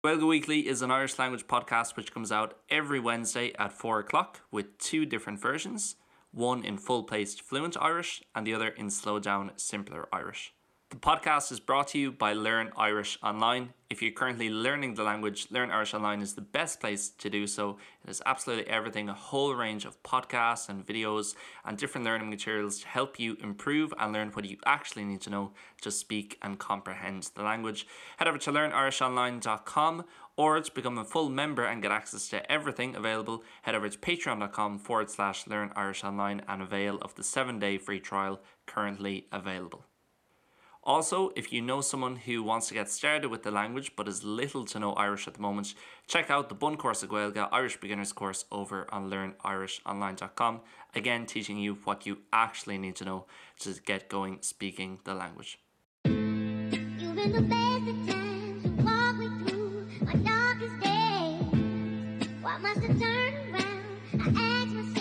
Gaeilge Weekly is an Irish language podcast which comes out every Wednesday at 4 o'clock with two different versions, one in full-paced fluent Irish and the other in slow down simpler Irish. The podcast is brought to you by Learn Irish Online. If you're currently learning the language, Learn Irish Online is the best place to do so. It is absolutely everything, a whole range of podcasts and videos and different learning materials to help you improve and learn what you actually need to know to speak and comprehend the language. Head over to learnirishonline.com or to become a full member and get access to everything available, head over to patreon.com forward slash learn Irish online and avail of the 7-day free trial currently available. Also, if you know someone who wants to get started with the language but is little to no Irish at the moment, check out the Bun Course of Gaeilge Irish Beginners course over on learnirishonline.com, again teaching you what you actually need to know to get going speaking the language. You've been the best of times to walk me through my darkest days. Why must I turn around? I ask myself.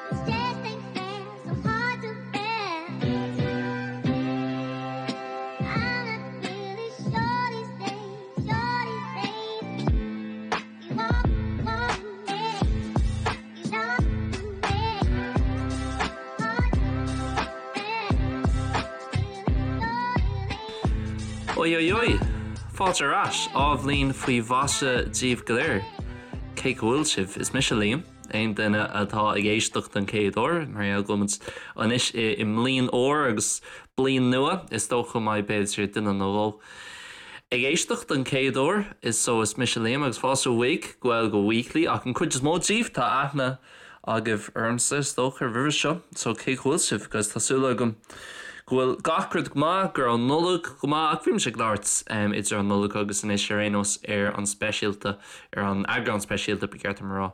This just ain't fair, so hard to bear. I'm not really sure these days, sure these days. You walk, walk me, you talk to me. Hard to bear. Oi oi oi! Fáilte ar ais, athbhliain faoi mhaise daoibh go léir. Cén chaoi a bhfuil sibh? Is mise Liam, aon duine atá ag éisteacht don chéad uair, mar gheall go bhfuil muid anois i mbliain úr agus bliain nua, is dócha go mbeidh b'fhéidir duine nó dhó ag éisteacht don chéad uair, is so is mise Liam agus fáilte chuig Gaeilge Weekly ach an cuid is mó díobh tá aithne agaibh ormsa is dócha roimhe seo so cén chaoi a bhfuil sibh guys tá súil agam go bhfuil gach rud go maith go raibh an Nollaig go maith ach bhí mise ag labhairt idir an Nollaig agus anois ar aon nós ar an speisialta ar an eagrán speisialta ba cheart dom a rá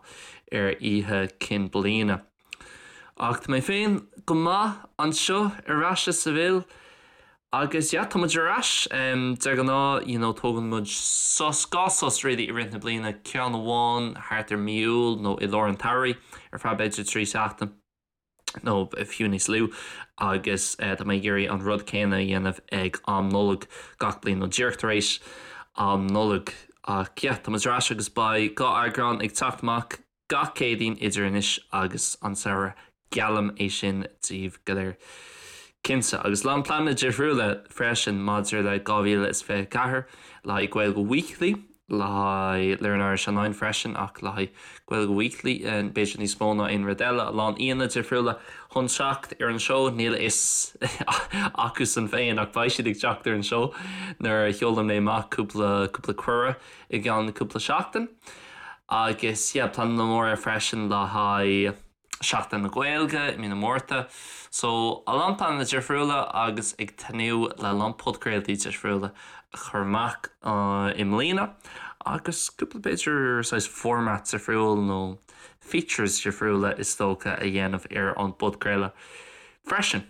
ar Oíche Chinn Bliana. Ach tá mé féin go maith anseo ar ais i Seville Agus yeah, tá muid ar ais. De ghnáth, you know, tógann muid sos, dhá sos really i rith na bliana, ceann amháin thart ar mí Iúil nó i lár an tsamhraidh ar feadh b'fhéidir 3 seachtain nó fiú níos lú agus tá mé ag iarraidh an rud céanna a dhéanamh ag am Nollag gach bliain nó díreach tar éis am Nollag. Ach yeah, tá muid ar ais agus beidh dhá eagrán ag teacht amach Gach Céadaoin idir anois agus an samhradh, geallaim é sin daoibh go léir. Cinnte. Agus a lán pleananna difriúla freisin maidir le 2024, le haghaidh Gaeilge Weekly, le haghaidh Learn Irish Online freisin ach le haghaidh Gaeilge Weekly b'fhéidir níos mó ná aon rud eile, a lán aíonna difriúla chun teacht ar an seó, níl a fhios acusan féin ach beidh siad ag teacht ar an seó nuair a sheolann mé amach cúpla cúpla cuireadh i gceann cúpla seachtain. Agus yeah, pleananna móra freisin le haghaidh Seachtain na Gaeilge i mí na Márta. So, a lán pleananna difriúla agus ag tnúth le a lán podchraoltaí difriúla a chur amach i mbliana agus cúpla b'fhéidir saghas format difriúil nó features difriúla is dócha a dhéanamh ar an bpodchraoladh freisin.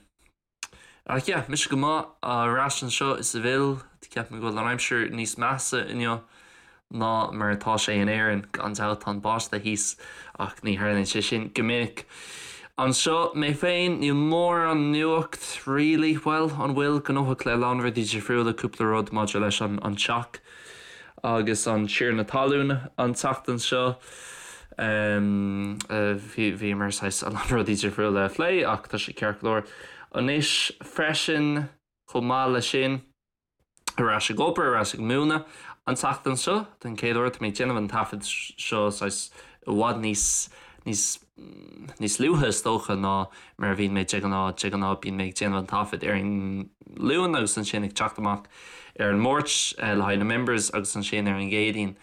Ach yeah, mise go maith ar ais anseo i Seville. Ceapaim go bhfuil an aimsir níos measa inniu ná mar atá sé in Éirinn. Gan dabht tá an báisteach thíos ach ní tharlaíonn sé sin go minic. Anseo mé féin, níl mórán nuacht really, bhuel, an bhfuil? Gnóthach le a lán rudaí difriúla, cúpla rud maidir leis an teach. agus an tiarna talún an tseachtain seo. Bhíomar saghas a lán rudaí difriúla a phlé ach tá sé ceart go leor anois freisin. Chomh maith leis sin, ar ais ag obair, ar ais ag múineadh an tseachtain seo den chéad uair. Tá mé ag déanamh an taifead seo saghas i bhfad níos níos níos luaithe is dócha ná mar a bhíonn mé de ghnáth. De ghnáth bíonn mé ag déanamh an taifead ar an Luan agus ansin ag teacht amach ar an Máirt le haghaidh na members agus ansin ar an gCéadaoin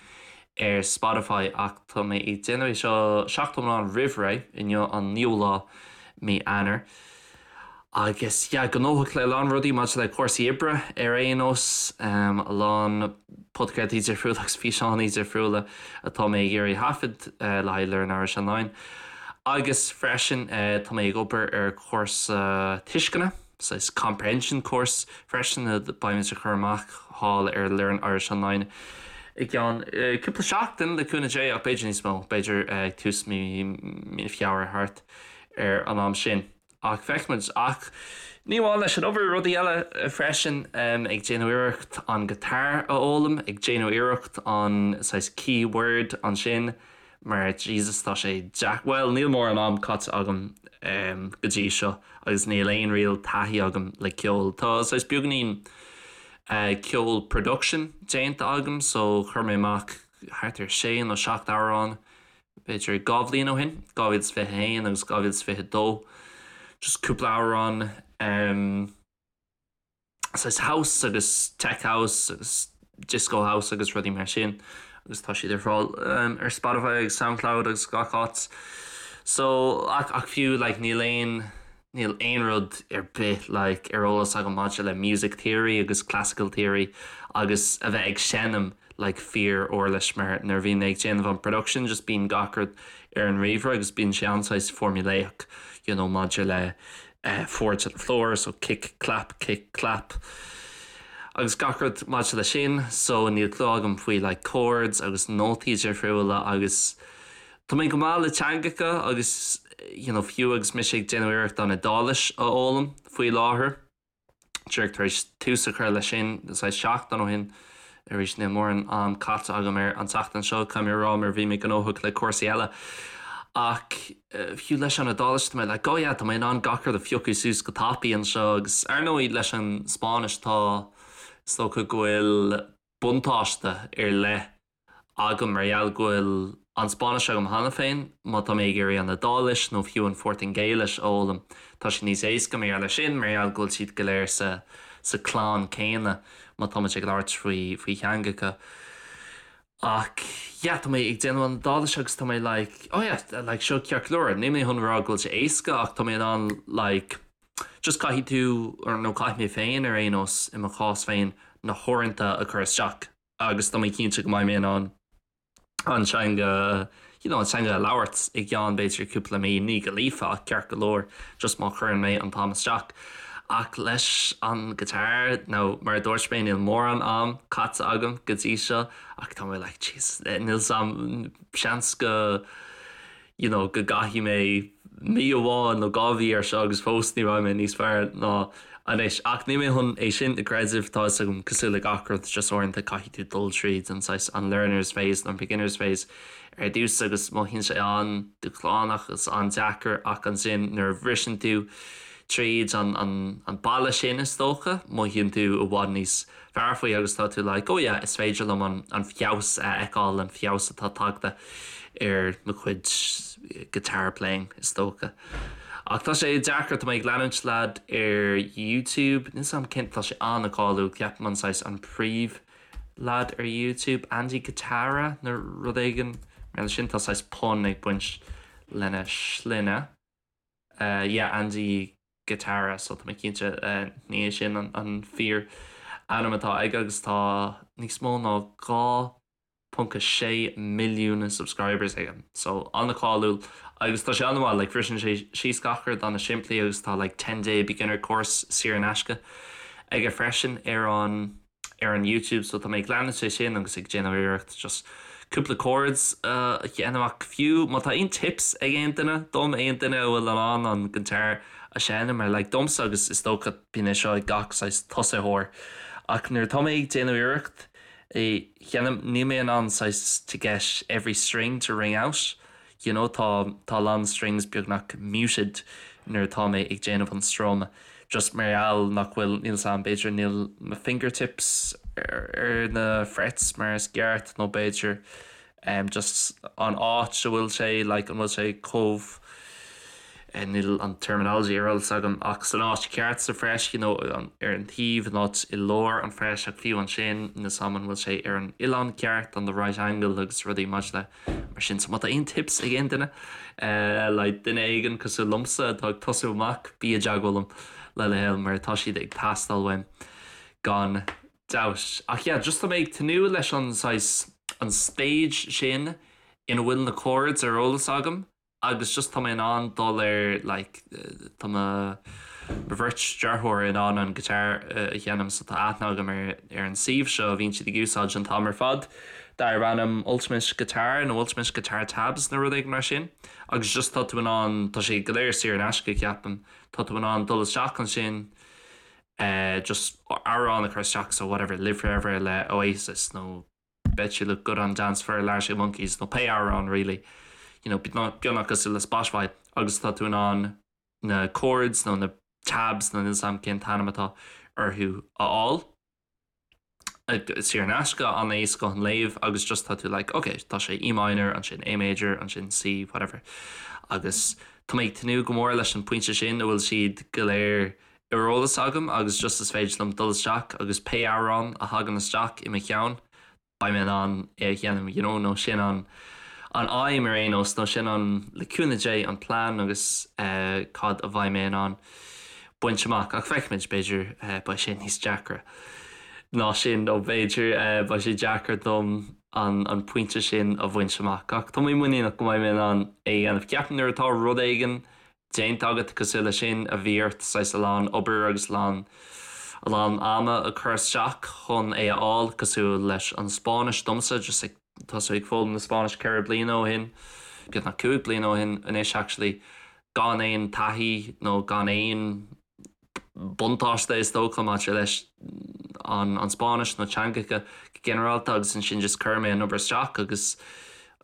ar Spotify ach tá mé ag déanamh é seo seachtain iomlán roimh ré, inniu an naoú lá mí Eanáir. Agus yeah, gnóthach le a lán rudaí maidir le cúrsaí oibre ar aon nós, a lán podchraoltaí difriúla agus físeáin difriúla atá mé ag iarraidh thaifead le haghaidh Learn Irish Online. Agus freisin tá mé ag obair ar chúrsa tuisceana, saghas comprehension course freisin a beidh muid ag cur amach thall ar Learn Irish Online i gceann cúpla seachtain le cúnamh Dé ach b'fhéidir níos mó, b'fhéidir ag tús mí Feabhra thart ar an am sin. Ach feicfimid. Ach ní amháin leis an obair, rudaí eile freisin, ag déanamh iarracht an guitar a fhoghlaim, ag déanamh iarracht an saghas keyword ansin mar Jesus tá sé deac-, bhuel níl mórán am caite agam go dtí seo agus níl aon real taithí agam le ceol. Tá saghas beagáinín ceol production déanta agam so chuir mé amach thart ar sé nó seacht amhrán b'fhéidir 2 bhliain ó shin, 2021 agus 2022, just cúpla amhrán saghas house agus tech house agus disco house agus rudaí mar sin agus tá siad ar fáil ar Spotify agus Soundcloud agus gach áit. So ach ach fiú like níl aon níl aon rud ar bith like ar eolas agam maidir le music theory agus classical theory agus a bheith ag seinm like fíor uirlis mar nuair a bhíonn mé ag déanamh an production just bíonn gach rud ar an ríomhaire agus bíonn sé an-saghas formulaic you know maidir le eh four to the floor so kick clap kick clap agus gach rud maidir le sin so níl clue agam faoi like chords agus nótaí difriúla agus Tá mé go maith le teangacha agus you know fiú agus mise ag déanamh iarracht an Iodáilis a fhoghlaim faoi láthair, díreach tar éis tús a chur leis sin saghas seachtain ó shin, arís níl mórán am caite agam air an tseachtain seo, caithfidh mé a rá mar bhí mé gnóthach le cúrsaí eile. Ach fiú leis an Iodáilis tá mé like oh yeah tá mé in ann gach rud a phiocadh suas go tapaidh anseo agus ar ndóigh leis an Spáinnis tá is dócha go bhfuil buntáiste ar leith agam mar gheall go bhfuil an Spáinnis agam cheana féin, má tá mé ag iarraidh an Iodáilis nó fiú an Phortaingéilis a fhoghlaim, tá sé níos éasca mar gheall air sin, mar gheall go bhfuil siad go léir sa sa clann céanna má táimid ag labhairt faoi faoi theangacha. Ach yeah, tá mé ag déanamh an Iodáilis agus tá mé like, oh yeah, like seo ceart go leor, níl mé chun rá go bhfuil sé éasca ach tá mé in ann like just caithfidh tú, nó caithfidh mé féin ar aon nós, i mo chás féin, na huaireanta a chur isteach. agus tá mé cinnte go mbeidh mé in ann an teanga you know an teanga a labhairt i gceann b'fhéidir cúpla mí, ní go líofa ach ceart go leor just má chuireann mé an t-am isteach. Ach leis an guitar nó mar a dúirt mé níl mórán am caite agam go dtí seo ach tá mé like jeez níl 's a'm seans go you know, go gcaithfidh mé mí amháin nó 2 mhí ar seo agus fós ní bheidh mé níos fearr ná anois. Ach níl mé chun é sin a chreideamh, tá 'fhios agam, cosúil le gach rud, just uaireanta caithfidh tú dul tríd an saghas, an learner's phase nó an beginner's phase ar dtús agus mothaíonn sé an-dúshlánach agus an-deacair ach ansin nuair a bhriseann tú tríd an, an, an balla sin is dócha, mothaíonn tú i bhfad níos fearr faoi agus tá tú like oh yeah is féidir liom an an feabhas a fheiceáil, an feabhas atá tagtha ar mo chuid guitar playing is dócha. Ach tá sé deacair, tá mé ag leanúint leaid ar YouTube, níl 's a'm cén, tá sé an-cáiliúil, ceapaim an saghas an príomh leaid ar YouTube, Andy Guitarra nó rud éigin mar sin, tá saghas pun ag baint lena shloinne. Yeah, Andy Guitarra so tá mé cinnte ní hé sin an fíor ainm atá aige agus tá níos mó ná 2.6 milliún subscribers aige so an-cháiliúil agus tá sé an-mhaith like briseann sé síos gach rud an-simplí agus tá like 10 day beginner course saor in aisce aige freisin ar an ar an YouTube so tá mé ag leanúint é sin agus ag déanamh iarracht just cúpla chords a dhéanamh ach fiú má tá aon tips ag aon duine dom, aon duine a bhfuil in ann an guitar a sheinm mar like domsa agus is dócha bíonn é seo ag gach saghas tosaitheoir ach nuair atá mé ag déanamh iarracht é sheinm níl mé in ann saghas to get every string to ring out you know tá tá a lán strings beagnach muted nuair atá mé ag déanamh an strum just mar gheall nach bhfuil, níl 's a'm, b'fhéidir níl mo fingertips ar na frets mar is ceart nó b'fhéidir em just an áit a bhfuil sé like an bhfuil sé chomh eh níl an terminology ar eolas agam ach san áit ceart sa fret you know ar an taobh an áit i lár an fret ach fiú ansin níl 's a'm an bhfuil sé ar an uillinn ceart on the right angle agus rudaí maidir le Mar sin, so má tá aon tips ag aon duine, le duine éigin cosúil liomsa atá ag tosú amach, bí i dteagmháil liom le do thoil mar tá siad ag teastáil uaim gan dabht. Ach yeah, just tá mé ag tnúth leis an saghas, an stage sin ina bhfuil na chords ar eolas agam agus just tá mé in ann dul ar like tá mo mo bheirt deartháir in ann an guitar a sheinm so tá aithne agam ar ar an suíomh seo a bhíonn siad ag úsáid an t-am ar fad. darb ainm Ultimate Guitar nó Ultimate Guitar Tabs nó rud éigin mar sin agus just tá tú in ann, tá sé go léir saor in aisce ceapaim, tá tú in ann dul isteach ansin just amhrán a chur isteach so whatever Live Forever le Oasis nó Bet You Look Good on the Dance Floor le Arctic Monkeys nó pé amhrán really you know beagnach cosúil le Spotify agus tá tú in ann na chords nó na tabs nó níl 's a'm cén t-ainm atá orthu a fháil. Saor in aisce, an-éasca chun léamh agus just tá tú like ok tá sé E minor ansin A major ansin C whatever agus tá mé ag tnúth go mór leis an pointe sin a bhfuil siad go léir ar eolas agam agus just is féidir liom dul isteach agus pé amhrán a thagann isteach i mo cheann beidh mé in ann é a sheinm you know nó sin an an aidhm ar aon nós nó sin an, le cúnamh Dé, an plean agus cad a bheidh mé in ann baint amach ach feicfimid, b'fhéidir beidh sé níos deacra ná sin nó b'fhéidir beidh sé deacair dom an an pointe sin a bhaint amach ach tá mé muiníneach go mbeidh mé in ann é a dhéanamh. Ceapaim nuair atá rud éigin déanta agat cosúil leis sin a bhí ort saghas a lán obair agus a lán a lán ama a chur isteach chun é a fháil cosúil leis an Spáinnis domsa just ag tosú ag foghlaim na Spáinnise 4 bliana ó shin beagnach 5 bliana ó shin anois actually gan aon taithí nó gan aon buntáiste is dócha maidir leis an an Spáinnis nó teangacha go ginearálta agus ansin just chuir mé an obair isteach agus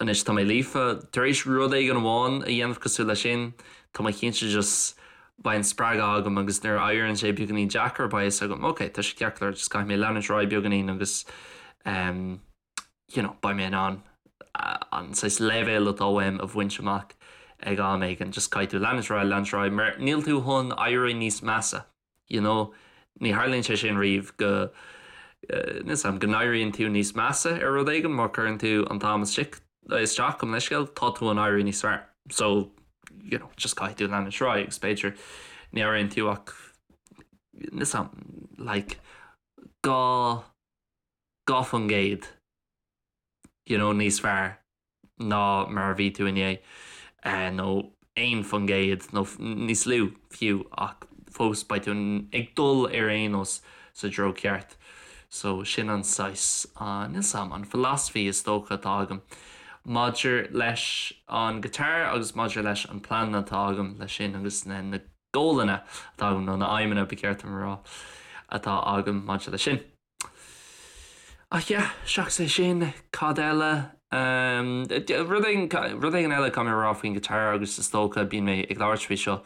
anois tá mé líofa. Tar éis rud éigin amháin a dhéanamh cosúil leis sin, tá mé cinnte just beidh an spreagadh agam agus nuair a éiríonn sé beagáinín deacair beidh fhios agam ok tá sé ceart go leor just caithfidh mé leanúint ar aghaidh beagáinín agus ehm you know beidh mé in ann an saghas leibhéal atá uaim a bhaint amach ag am éigin, just caithfidh tú leanúint ar aghaidh, leanúint ar aghaidh mar níl tú chun éirí níos measa, you know, ní tharlaíonn sé sin riamh go, níl 's a'm, go n-éiríonn tú níos measa ar rud éigin má chuireann tú an t-am isteach, isteach gabh mo leithscéal, tá tú chun éirí níos fearr. So, you know, just caithfidh tú leanúint ar aghaidh agus b'fhéidir ní éiríonn tú ach, níl 's a'm, like, 2, 2% you know níos fearr ná mar a bhí tú inné nó 1% nó níos lú fiú ach fós beidh tú ag dul ar aon nós sa treo ceart. So sin an saghas, níl 's a'm, an philosophy is dócha atá agam maidir leis an guitar agus maidir leis an plean atá agam leis sin agus na na goalanna atá agam nó na aidhmeanna ba cheart dom a rá atá agam maidir leis sin. Ach yeah, seachas é sin, cad eile? Rud éigin, rud éigin eile caithfidh mé a rá faoin guitar agus is dócha bíonn mé ag labhairt faoi seo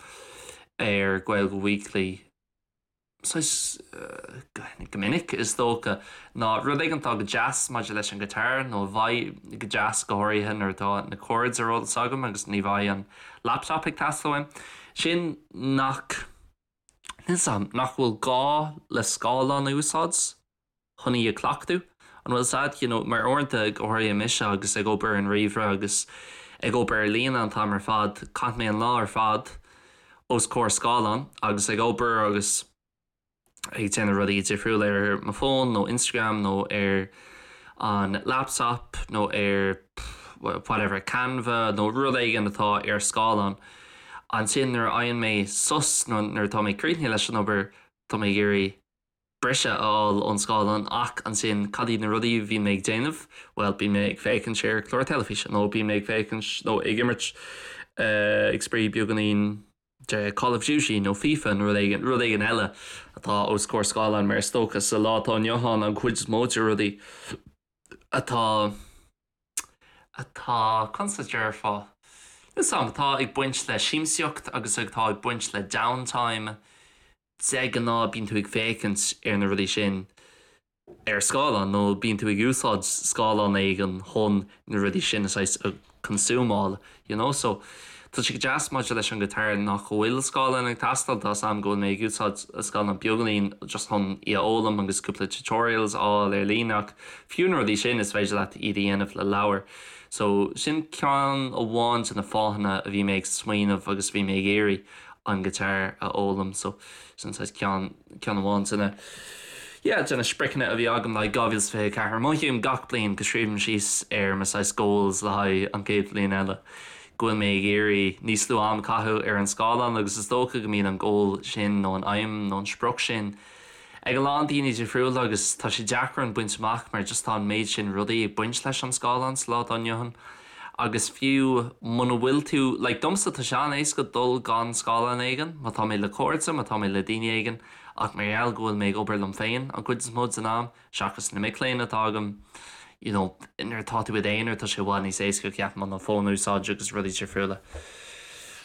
ar Gaeilge Weekly saghas go minic is dócha, ná rud éigin atá go deas maidir leis an guitar nó a bheidh go deas go háirithe nuair atá na chords ar eolas agam agus ní bheidh an laptop ag teastáil uaim, sin nach. Níl 's a'm, nach bhfuil gá le scáileán a úsáid chun í a chleachtadh? An bhfuil 's a'd, you know, mar uaireanta, go háirithe mise agus ag obair ar an ríomhaire agus ag obair ar líne an t-am ar fad, caithfidh mé an lá ar fad os comhair scáileán agus ag obair agus ag déanamh rudaí difriúla ar mo fón nó Instagram nó ar an laptop nó ar whatever, Canva nó rud éigin atá ar scáileán. Ansin nuair a fhaigheann mé sos nó nuair atá mé críochnaithe leis an obair tá mé ag iarraidh briseadh a fháil ón scáileán ach ansin cad iad na rudaí a bhíonn mé ag déanamh? Bhuel bíonn mé ag féachaint ar chlár teilifíse nó bíonn mé ag féachaint nó ag imirt ag spraoi beagáinín de Call of Duty nó FIFA nó rud éigin, rud éigin eile atá os comhair scáileáin mar is dócha sa lá atá inniu ann an chuid is mó de rudaí atá atá, conas a déarfá, níl 's a'm, atá ag baint le siamsaíocht agus atá ag baint le downtime, de ghnáth bíonn tú ag féachaint ar na rudaí sin ar scáileán nó bíonn tú ag úsáid scáileán éigin chun na rudaí sin a saghas a consúmáil you know so tá sé go deas maidir leis an guitar nach bhfuil scáileán ag teastáil tá 's a'm go bhfuil mé ag úsáid scáileán beagáinín just chun í a fhoghlaim agus cúpla tutorials a fháil ar líne ach fiú na rudaí sin is féidir leat iad a dhéanamh le leabhar so sin ceann amháin de na fáthanna a bhí mé ag smaoineamh agus bhí mé ag iarraidh an guitar a fhoghlaim so sin saghas ceann ceann amháin de na yeah de na spriocanna a bhí agam le haghaidh 2024. Mothaím gach bliain go scríobhaim síos ar mo saghas goals le haghaidh an chéad bhliain eile go bhfuil mé ag iarraidh níos lú am a chaitheamh ar an scáileán agus is dócha go mbíonn an goal sin nó an aidhm nó an sprioc sin. ag a lán daoine difriúla agus tá sé deacair an baint amach mar just tá an méid sin rudaí ag baint leis an scáileán sa lá atá inniu ann agus fiú muna bhfuil tú, like domsa tá sé an-éasca dul gan scáileán éigin má tá mé le cairde, má tá mé le daoine éigin ach mar gheall go bhfuil mé ag obair liom féin an chuid is mó den am, seachas na mic léinn atá agam, you know, nuair atá tú i d'aonar tá sé i bhfad níos éasca ceapaim an fón a úsáid agus rudaí difriúla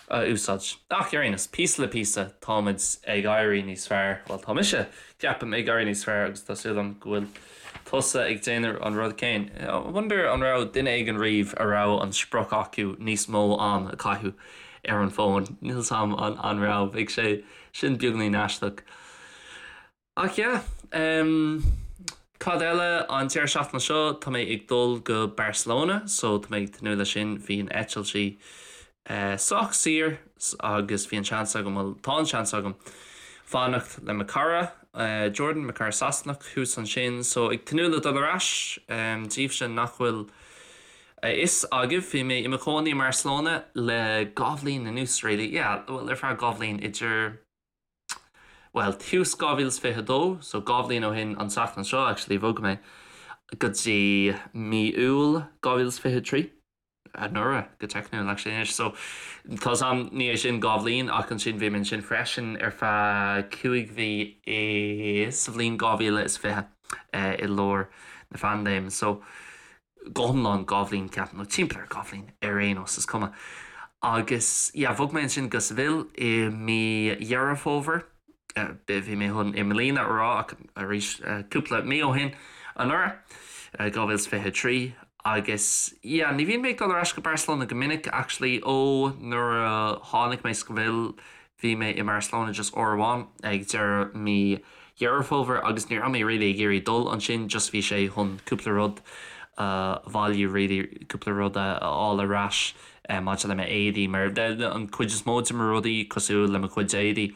a úsáid. Ach ar aon nós, píosa le píosa táimid ag éirí níos fearr, bhuel tá mise, ceapaim, ag éirí níos fearr agus tá súil agam go bhfuil tusa ag déanamh an rud céanna. I wonder an raibh duine éigin riamh a raibh an sprioc acu níos mó am a chaitheamh ar an bhfón, níl 's a'm an raibh, bheadh sé sin beagainín aisteach. Ach yeah, em, cad eile, an deireadh seachtaine seo tá mé ag dul go Barcelona so tá mé ag tnúth leis sin, bhí an eitiltí eh sách saor agus bhí an seans agam, bhuel tá an seans agam fanacht le mo cara eh Jordan, mo cara Sasanach thuas ansin so ag tnúth le dul ar ais, em, daoibhse nach bhfuil a fhios agaibh bhí mé i mo chónaí i mBarcelona le dhá bhliain anuas really, yeah, bhuel ar feadh dhá bhliain idir bhuel, tús 2022, so 2 bhliain ó shin an tseachtain seo actually, bhog mé go dtí mí Iúil 2023, anuraidh go teicniúil actually anois, so tá 's a'm ní hé sin 2 bhliain ach ansin bhí mé ansin freisin ar feadh 5 mhí i sa bhliain 2020 i lár na phaindéime, so go hiomlán 2 bhliain ceapaim, nó timpeall ar 2 bhliain ar aon nós, is cuma. Agus yeah, bhog mé ansin go Seville i mí Dheireadh Fómhair, bhí mé chun i mbliana a rá ach arís cúpla mí ó shin anuraidh, 2023, agus yeah, ní bhíonn mé ag dul ar ais go Barcelona go minic actually ó nuair a tháinig mé Seville Bhí mé i mBarcelona just uair amháin ag deireadh mí Dheireadh Fómhair agus ní raibh mé really ag iarraidh dul ansin just bhí sé chun cúpla rud a bhailiú really cúpla rud a fháil ar ais maidir le m'éadaí mar an cuid is mó de mo rudaí cosúil le mo chuid éadaí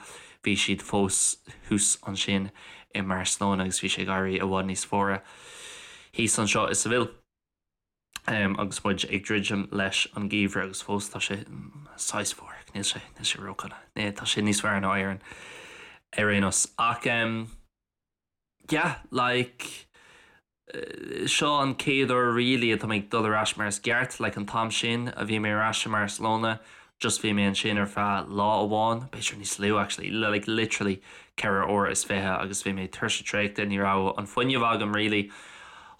bhí siad fós thuas ansin i mBarcelona agus bhí sé ag éirí i bhfad níos fuaire thíos anseo i Seville. agus muid ag druidim leis an gheimhreadh agus fós tá sé saghas fuar, níl sé, níl sé ródhona, tá sé níos fearr ná Éirinn ar aon nós. Ach yeah, like seo an chéad uair really atá mé ag dul ar ais mar is ceart, like an t-am sin a bhí mé ar ais i mBarcelona, Just bhí mé ansin ar feadh lá amháin, b'fhéidir níos lú actually, like literally 24 uair agus bhí mé tuirseach traochta, ní raibh an fuinneamh agam really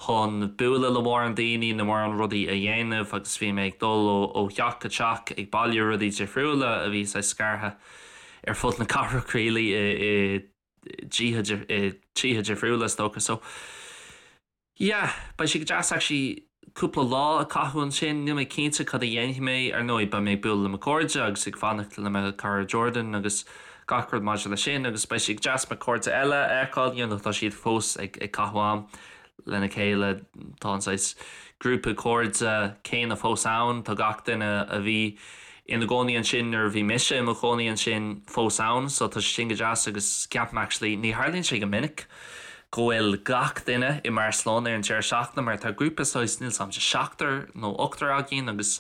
chun bualadh le mórán daoine nó mórán rudaí a dhéanamh agus bhí mé ag dul ó theach go teach ag bailiú rudaí difriúla a bhí saghas scartha ar fud na cathrach really i dtithe difriúla is dócha so Yeah, beidh sé go deas actually cúpla lá a caitheamh ansin, níl mé cinnte cad a dhéanfaidh mé, ar ndóigh beidh mé ag bualadh le mo chairde agus ag fanacht le mo chara Jordan agus gach rud maidir leis sin agus beidh sé go deas mo chairde eile a fheiceáil, you know tá siad fós ag caitheamh am lena chéile, tá an saghas grúpa cairde céanna fós ann, tá gach duine a bhí ina gcónaí ansin nuair a bhí mise i mo chónaí ansin fós ann so tá sé sin go deas agus ceapaim actually ní tharlaíonn sé go minic go bhfuil gach duine i mBarcelona ar an deireadh seachtaine mar tá grúpa saghas níl 's a'm de seachtar nó ochtar againn agus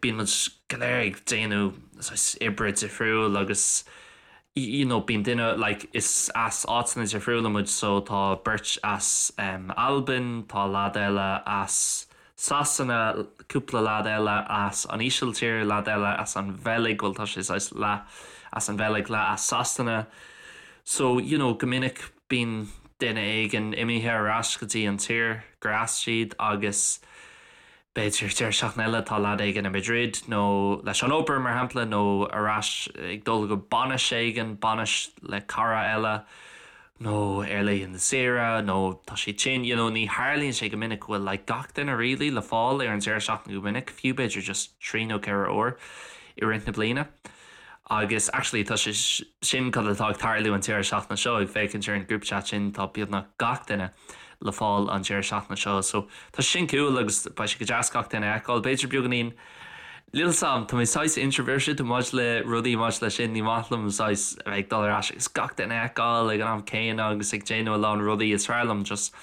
bíonn muid go léir ag déanamh saghas oibre difriúil agus you know bíonn duine like is as áiteanna difriúla muid so tá beirt as um, Albain, tá leaid eile as Sasana, cúpla leaid eile as an Ísiltír, leaid eile as an Bheilg, bhuel tá sé saghas leath as an Bheilg, leath as Sasana. So, you know, go minic bíonn duine éigin imithe ar ais go dtí an tír gur as siad agus b'fhéidir deireadh seachtaine eile tá leaid éigin i Madrid nó leis an obair mar shampla nó ar ais ag dul go bainis éigin, bainis le cara eile. nó ar laethanta saoire nó tá sé tinn, you know, ní tharlaíonn sé go minic go bhfuil like gach duine really le fáil ar an deireadh seachtaine go minic, fiú b'fhéidir just trí nó ceithre uair i rith na bliana. Agus actually tá sé sin cad atá ag tarlú an deireadh seachtaine seo, ag féachaint ar an group chat sin tá beagnach gach duine le fáil an deireadh seachtaine seo so tá sé sin cool agus beidh sé go deas gach duine a fheiceáil, b'fhéidir beagáinín Níl 's a'm, tá mé saghas introverted maidir le rudaí maidir leis sin, ní maith liom saghas a bheith ag dul ar ais agus gach duine a fheiceáil ag an am céanna agus ag déanamh a lán rudaí, is fearr liom just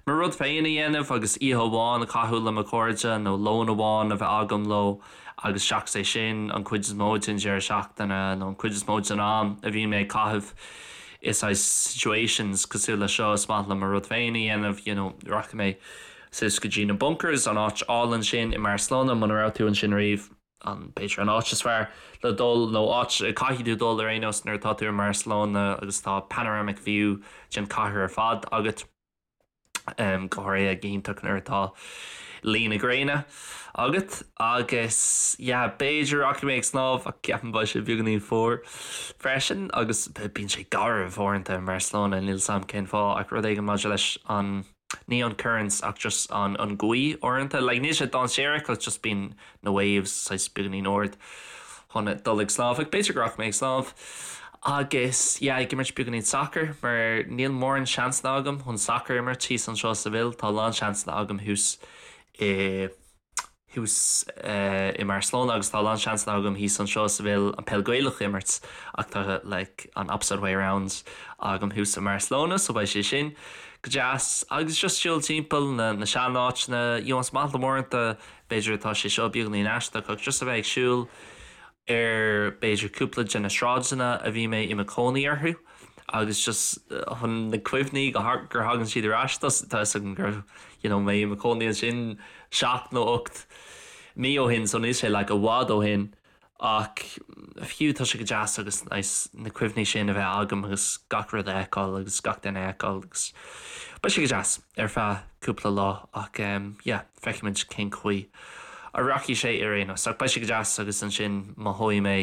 mo rud féin a dhéanamh agus oíche amháin a chaitheamh le mo chairde nó lón amháin a bheith agam leo agus seachas é sin an chuid is mó den deireadh seachtaine nó an chuid is mó den am a bhíonn mé ag caitheamh. i saghas situations cosúil le seo is maith liom mo rud féin a dhéanamh you know rachaidh mé suas go dtí na bunkers an áit álainn sin i mBarcelona muna raibh tú ansin riamh an b'fhéidir an áit is fearr le dul nó áit a caithfidh tú dul ar aon nós nuair atá tú i mBarcelona agus tá panoramic view den chathair ar fad agat. go háirithe go hiontach nuair atá luí na gréine agat agus yeah b'fhéidir rachaidh mé ag snámh ach ceapaim beidh sé beagáinín fuar freisin agus bíonn sé garbh uaireanta i mBarcelona níl 's a'm cén fáth ach rud éigin maidir leis an ní an currents ach just an an gaoth uaireanta like níl sé dainséarach ach just bíonn na waves saghas beagáinín ard chun dul ag snámh ach b'fhéidir go rachaidh mé ag snámh agus yeah ag imirt beagáinín sacair mar níl mórán seansanna agam chun sacar a imirt thíos anseo i Seville tá a lán seansanna agam thuas i thuas i mBarcelona agus tá a lán seansanna agam thíos anseo i Seville an peil Gaelach a imirt ach tá like an opposite way round agam thuas i mBarcelona so beidh sé sin go deas agus just siúl timpeall na na seanáiteanna you know is maith liom uaireanta B'fhéidir atá sé seo beagáinín aisteach ach just a bheith ag siúl ar b'fhéidir cúpla de na sráideanna a bhí mé i mo chónaí orthu agus just chun na cuimhní gur thagann siad ar ais tá a fhios agam go raibh you know mé i mo chónaí ansin seacht nó ocht mí ó shin so níl sé like i bhfad ó shin Ach fiú tá sé go deas agus nice na cuimhní sin a bheith agam agus gach rud a fheiceáil agus gach duine a fheiceáil agus beidh sé go deas ar feadh cúpla lá ach yeah feicfimid cén chaoi a rachaidh sé ar aon nós. Ach beidh sé go deas agus ansin mothóidh mé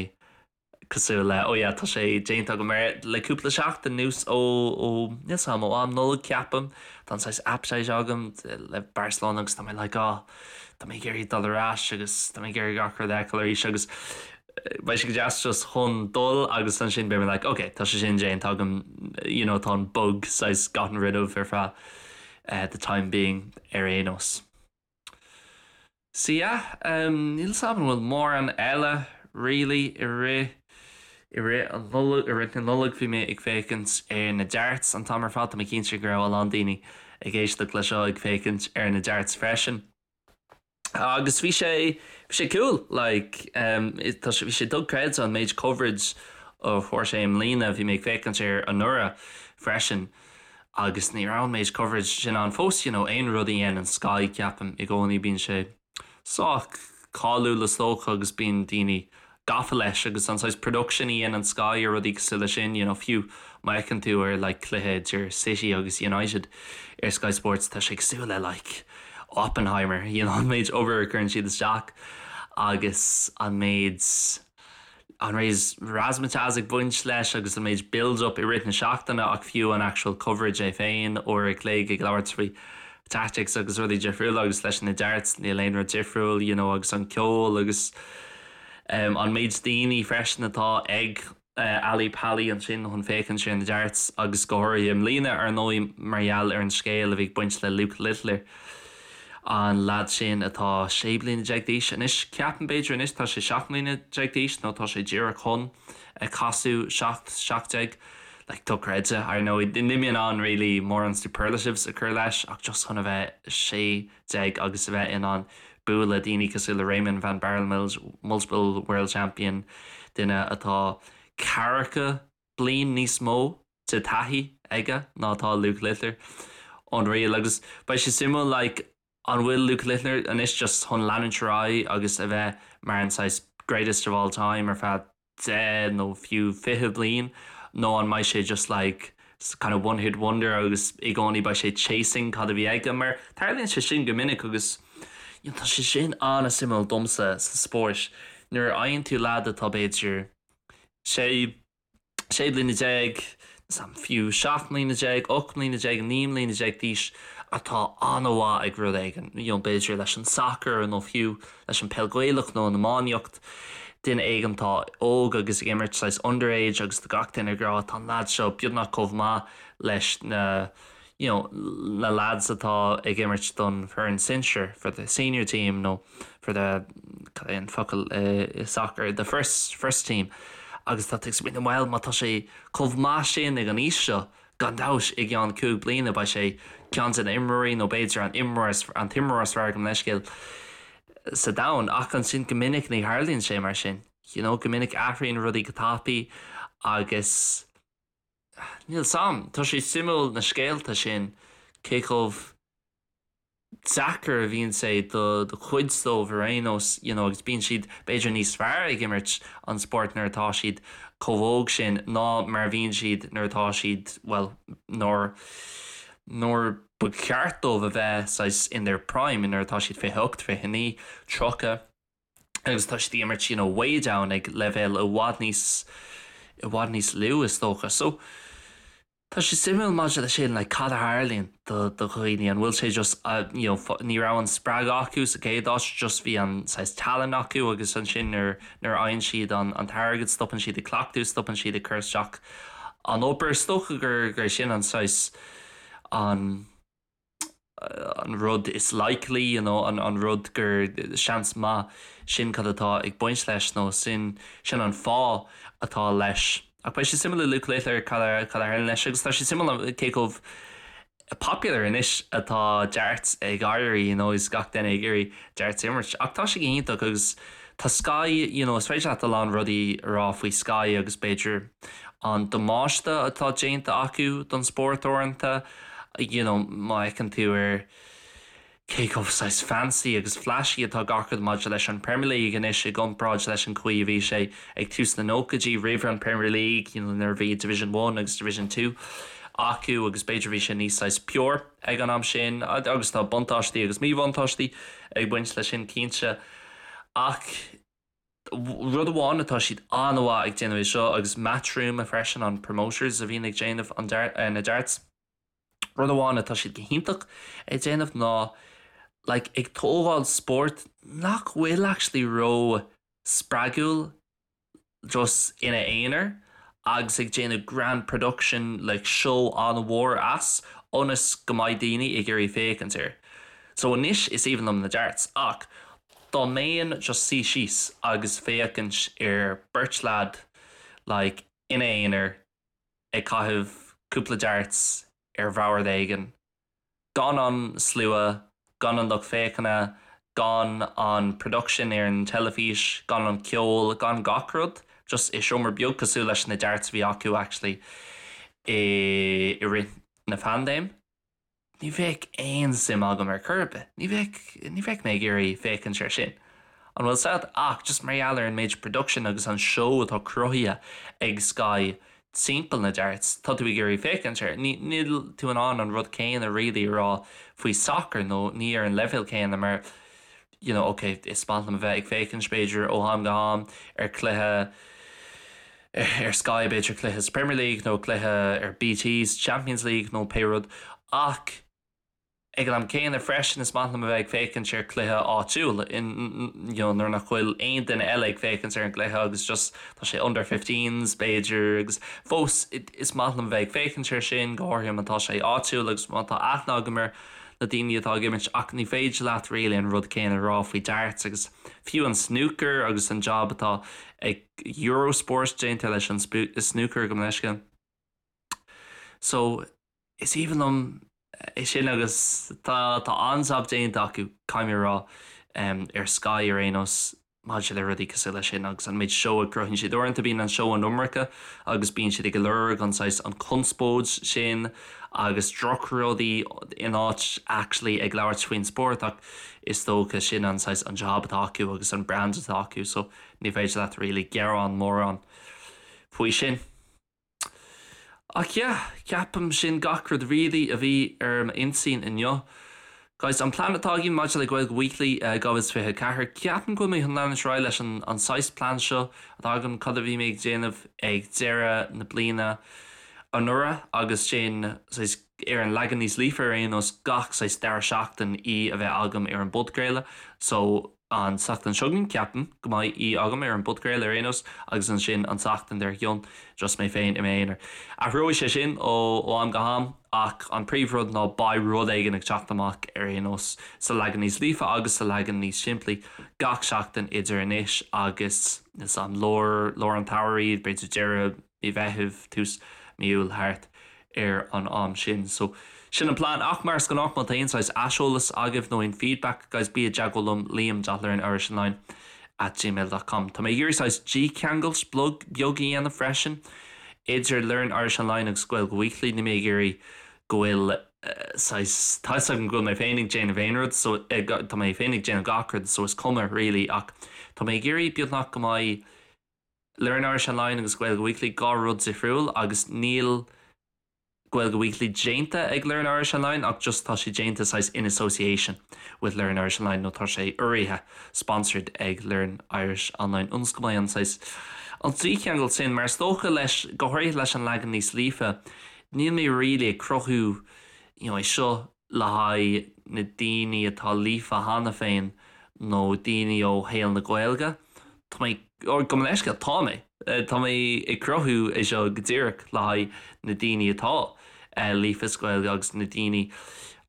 cosúil le oh yeah tá sé déanta agam mar le cúpla seachtain anuas ó ó níl 's a'm ó am Nollag ceapaim tá an saghas appetite agam le Barcelona agus tá mé like oh Tá mé ag iarraidh dul ar ais agus tá mé ag iarraidh gach rud a fheiceáil arís agus beidh sé go deas just chun dul agus ansin beidh mé like ok tá sé sin déanta agam you know tá an bug saghas gotten rid of ar feadh eh, the time being ar aon nós. So yeah, um, níl 's agam an bhfuil mórán eile really i rith i rith an Nollag, i rith na Nollag bhí mé ag féachaint ar na darts an t-am ar fad, tá mé cinnte go raibh a lán daoine ag éisteacht le seo ag féachaint ar na darts freisin. Agus bhí sé bhí sé cool like um, tá sé bhí sé dochreidte an méid coverage a fuair sé i mbliana, bhí mé ag féachaint air anuraidh freisin agus ní raibh an méid coverage sin ann fós, you know, aon rud a dhéanann Sky ceapaim i gcónaí bíonn sé sách cáiliúil is dócha agus bíonn daoine gafa leis agus an saghas production a dhéanann Sky ar rudaí cosúil leis sin, you know, fiú má fheiceann tú ar like cluiche idir City agus United ar Sky Sports tá sé cosúil le like Oppenheimer, you know, an méid obair a chuireann siad isteach agus an méid an méid razzmatazz ag baint leis agus an méid build up i rith na seachtaine ach fiú an actual coverage é féin, uair a chloig ag labhairt faoi tactics agus rudaí difriúla agus leis na darts níl aon rud difriúil you know agus an ceol agus um, an méid daoine freisin atá ag uh, Ali Pali ansin chun féachaint ar na darts agus go háirithe i mbliana ar ndóigh mar gheall ar an scéal a bhí ag baint le Luke Littler an leaid sin atá 16 bliana d'aois anois ceapaim b'fhéidir anois tá sé 17 mbliana d'aois nó tá sé díreach chun casadh 17 17 like dochreidte ar ndóigh níl mé in ann really mórán superlatives a chur leis ach just chun a bheith 16 agus a bheith in ann bualadh daoine cosúil le Raymond van Barneveld multiple world champion duine atá ceathracha bliain níos mó de taithí aige ná atá Luke Littler unreal agus beidh sé suimiúil like an bhfuil Luke Littler anois just chun leanúint ar aghaidh agus a bheith mar an saghas greatest of all time ar feadh 10 nó fiú 20 bliain nó an mbeidh sé just like kind of one hit wonder agus i gcónaí beidh sé chasing cad a bhí aige mar tarlaíonn sé sin go minic agus you know, tá sé sin an-suimiúil domsa sa spórt nuair a fhaigheann tú leaid atá b'fhéidir sé 16 bliana, fiú 17 mbliana, 18 mbliana, 19 mbliana d'aois atá an-mhaith ag rud éigin, you know, b'fhéidir leis an sacar nó fiú leis an peil Gaelach nó an iománaíocht, duine éigin atá óg agus ag imirt saghas underage agus tá gach duine ag rá tá an leaid seo beagnach chomh maith leis na you know, na lads atá ag imirt don foireann sinsir, for the senior team nó for the cad é an focal i soccer, the first first team agus tá tú ag smaoineamh bhuel má tá sé chomh maith sin ag an aois seo gan dabht i gceann cúig bliana beidh sé ceann de na imreoirí nó b'fhéidir an imreoir an t-imreoir is fearr gabh mo leithscéal sa domhan ach ansin go minic ní tharlaíonn sé mar sin you know go minic athraíonn rudaí go tapaidh agus. Níl 's a'm, tá sé suimiúil na scéalta sin, cé chomh deacair a bhíonn sé do chuid dóibh ar aon nós, you know, agus bíonn siad b'fhéidir níos fearr ag imirt an spóirt nuair atá siad chomh hóg sin ná mar a bhíonn siad nuair atá siad, bhuel, nuair, nuair ba cheart dóibh a bheith saghas in their prime, nuair atá siad 28, 29, 30. Agus tá siad ag imirt, you know, way down ag leibhéal i bhfad níos, i bhfad níos lú is dócha. So, tá sé suimiúil maidir leis sin, like, cad a tharlaíonn do, do dhaoine, an bhfuil sé just, you know, ní raibh an spreagadh acu sa chéad áit, just bhí an saghas tallann acu agus ansin nuair, nuair a fhaigheann siad an, an t-airgead stopann siad ag cleachtadh, stopann siad ag cur isteach an obair. Is dócha gur, gur sin an saghas, an. an rud is likely, you know, an rud gur seans maith sin cad atá ag baint leis nó sin sin an fáth atá leis. Ach beidh sé suimiúil le Luke Littler cad a cad a tharlaíonn leis agus tá sé suimiúil cé chomh popular anois atá darts ag éirí, you know, is gach duine ag iarraidh darts a imirt. Ach tá sé go hiontach agus tá Sky, you know, is féidir leat a lán rudaí a rá faoi Sky agus b'fhéidir an damáiste atá déanta acu don spórt uaireanta, you know, má fheiceann tú ar cé chomh saghas fancy agus flashy atá gach rud maidir leis an Premier League anois i gcomparáid leis an chaoi a bhí sé ag tús na nóchaidí roimh an Premier League, you know, nuair a bhí Division One agus Division Two acu agus b'fhéidir bhí sé níos saghas pure ag an am sin agus tá buntáistí agus míbhuntáistí ag baint leis sin cinnte ach Rud amháin atá siad an-mhaith ag déanamh é seo agus Matchroom freisin an promoters a bhíonn ag déanamh an na darts. Rud amháin atá siad go hiontach ag déanamh ná like ag tógáil spórt nach bhfuil actually ró spreagúil just ina aonar agus ag déanamh grand production like show an-mhór as ionas go mbeidh daoine ag iarraidh féachaint air. So anois is aoibhinn liom na darts ach dá mbeinn just suí síos agus féachaint ar beirt leaid like ina aonar ag caitheamh cúpla darts ar bhord éigin, gan an slua, gan an lucht féachana, gan an production ar an teilifís, gan an ceol, gan gach rud, just i seomra beag cosúil leis na darts a bhí acu actually i i rith na paindéime. Ní bheadh aon suim agam ar chor ar bith. Ní bheadh, ní bheadh mé ag iarraidh féachaint air sin. An bhfuil 's a'd? Ach just mar gheall ar an méid production agus an seó atá cruthaithe ag Sky timpeall na darts, tá tú ag iarraidh féachaint air. Ní, níl tú in ann an rud céanna really a rá faoi soccer nó ní ar an leibhéal céanna mar you know, ok, is maith liom a bheith ag féachaint b'fhéidir ó am go ham ar chluiche ar Sky b'fhéidir cluiche sa Premier League nó cluiche ar BT sa Champions League nó pé rud ach ag an am céanna freisin is maith liom a bheith ag féachaint ar chluiche áitiúil in you know, nuair nach bhfuil aon duine eile ag féachaint ar an gcluiche agus just tá sé under 15s b'fhéidir agus fós is maith liom a bheith ag féachaint air sin go háirithe má tá sé áitiúil agus má tá aithne agam ar na daoine atá ag imirt ach ní féidir leat really an rud céanna a rá faoi darts agus fiú an snooker agus an job atá ag Eurosport déanta leis an snooker gabh mo leithscéal. So is aoibhinn liom é sin agus tá tá an-jab déanta acu caithfidh mé a rá ar Sky ar aon nós maidir le rudaí cosúil leis sin agus an méid seó a chruthaíonn siad. Uaireanta bíonn an seó an iomarca agus bíonn siad ag lorg an saghas an conspóid sin agus drochrudaí in áit actually ag labhairt faoin spórt ach is dócha sin an saghas an job atá acu agus an brand atá acu so ní féidir leat really gearán mórán faoi sin. Ach yeah, ceapaim sin gach rud really a bhí ar m'intinn inniu. Guys, an plean atá againn maidir le Gaeilge Weekly 2024, ceapaim go bhfuil mé chun leanúint ar aghaidh leis an an saghas plean seo atá agam, cad a bhí mé ag déanamh ag deireadh na bliana anuraidh agus sin saghas ar an leagan níos líofa ar aon nós gach saghas dara seachtain í a bheith agam ar an bpodchraoladh. So An tseachtain seo chugainn, ceapaim go mbeidh í agam ar an bpodchraoladh ar aon nós, agus ansin an tseachtain dár gcionn, just mé féin i m'aonar. Athróidh sé sin ó am go ham, ach an príomhrud ná beidh rud éigin ag teacht amach ar aon nós, sa leagan níos líofa agus sa leagan níos simplí, gach seachtain idir anois agus, níl 's a'm, lár, lár an tsamhraidh, b'fhéidir deireadh mí Mheithimh, tús mí Iúil, thart ar an am sin. So, sin an plean. Ach mar is gnách, má tá aon saghas aiseolas agaibh nó aon feedback, guys, bí i dteagmháil liom, liam dot learn irish online at gmail dot com. Tá mé ag iarraidh saghas dícheangailt beag a dhéanamh freisin. idir Learn Irish Online agus Gaeilge Weekly, níl mé ag iarraidh go bhfuil saghas, tá 'fhios agam go bhfuil mé féin ag déanamh aon rud so tá mé féin ag déanamh gach rud so is cuma really ach tá mé ag iarraidh beagnach go mbeidh Learn Irish Online agus Gaeilge Weekly 2 rud difriúil agus níl Gaeilge Weekly déanta ag Learn Irish Online ach just tá sé déanta saghas in association with Learn Irish Online nó tá sé urraithe, sponsored ag Learn Irish Online ionas go mbeidh an saghas an dícheangal sin mar is dócha leis, go háirithe leis an leagan níos líofa, níl mé really ag cruthú you know é seo le haghaidh na daoine atá líofa cheana féin nó daoine ó shaol na Gaeilge. Tá mé, or gabh mo leithscéal, tá mé, tá mé ag cruthú é seo go díreach le haghaidh na daoine atá líofa sa Ghaeilge agus na daoine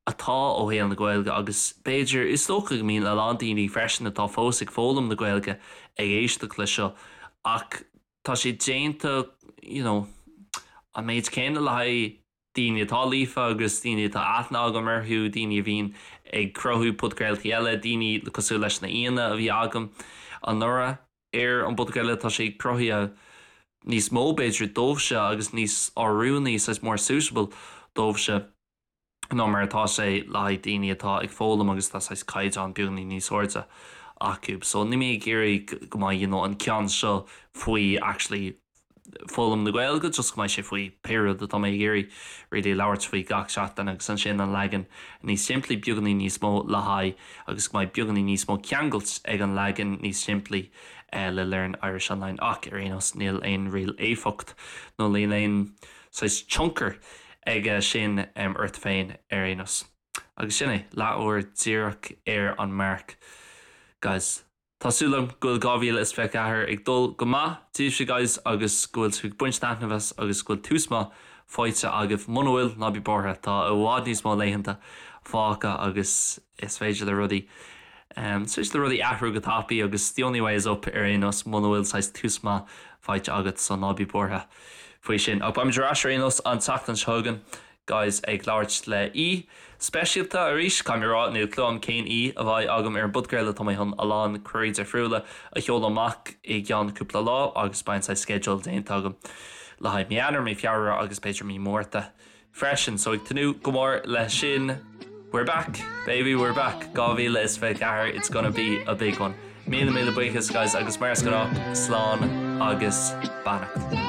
atá ó shaol na Gaeilge agus b'fhéidir, is dócha go mbíonn a lán daoine freisin atá fós ag foghlaim na Gaeilge ag éisteacht leis seo ach tá sé déanta, you know, an méid céanna le haghaidh daoine atá líofa agus daoine atá aithne agam orthu, daoine a bhíonn ag cruthú podchraoltaí eile, daoine cosúil leis na aíonna a bhí agam anuraidh ar an bpodchraoladh, tá sé cruthaithe níos mó b'fhéidir dóibhse agus níos oiriúnaí, saghas more suitable dóibhse ná mar atá sé le haghaidh daoine atá ag foghlaim agus tá saghas caighdeán beagáinín níos airde acu. So níl mé ag iarraidh go mbeidh you know an ceann seo faoi actually foghlaim na Gaeilge, just go mbeidh sé faoi pé rud atá mé ag iarraidh really labhairt faoi gach seachtain agus ansin an leagan níos simplí, beagáinín níos mó le haghaidh agus go mbeidh beagáinín níos mó ceangailt ag an leagan níos simplí le Learn Irish Online ach ar aon nós níl aon real éifeacht nó níl aon saghas tionchar aige sin ort féin ar aon nós. Agus sin é, leathuair díreach ar an marc guys. Tá súil agam go bhfuil 2024 ag dul go maith daoibhse guys agus go bhfuil sibh ag baint taitneamh as agus go bhfuil tús maith faighte agaibh. Muna bhfuil, ná bí buartha, tá i bhfad níos mó laethanta fágtha agus is féidir le rudaí, is féidir le rudaí athrú go tapaidh agus the only way is up ar aon nós muna bhfuil saghas tús maith faighte agat so ná bí buartha faoi sin. Ach beimid ar ais ar aon nós an tseachtain seo chugainn. Guys ag labhairt le aoi speisialta arís, caithfidh mé a rá, níl clue agam cén aoi a bheidh agam ar an bpodchraoladh, tá mé chun a lán cuirí difriúla a sheoladh amach i gceann cúpla lá agus beidh an saghas sceideal déanta agam le haghaidh mí Eanáir, mí Feabhra agus b'fhéidir mí Márta freisin, so ag tnúth go mór leis sin. We're back, baby, we're back, 2024, it's gonna be a big one. Míle míle buíochas guys agus mar is gnách, slán agus beannacht.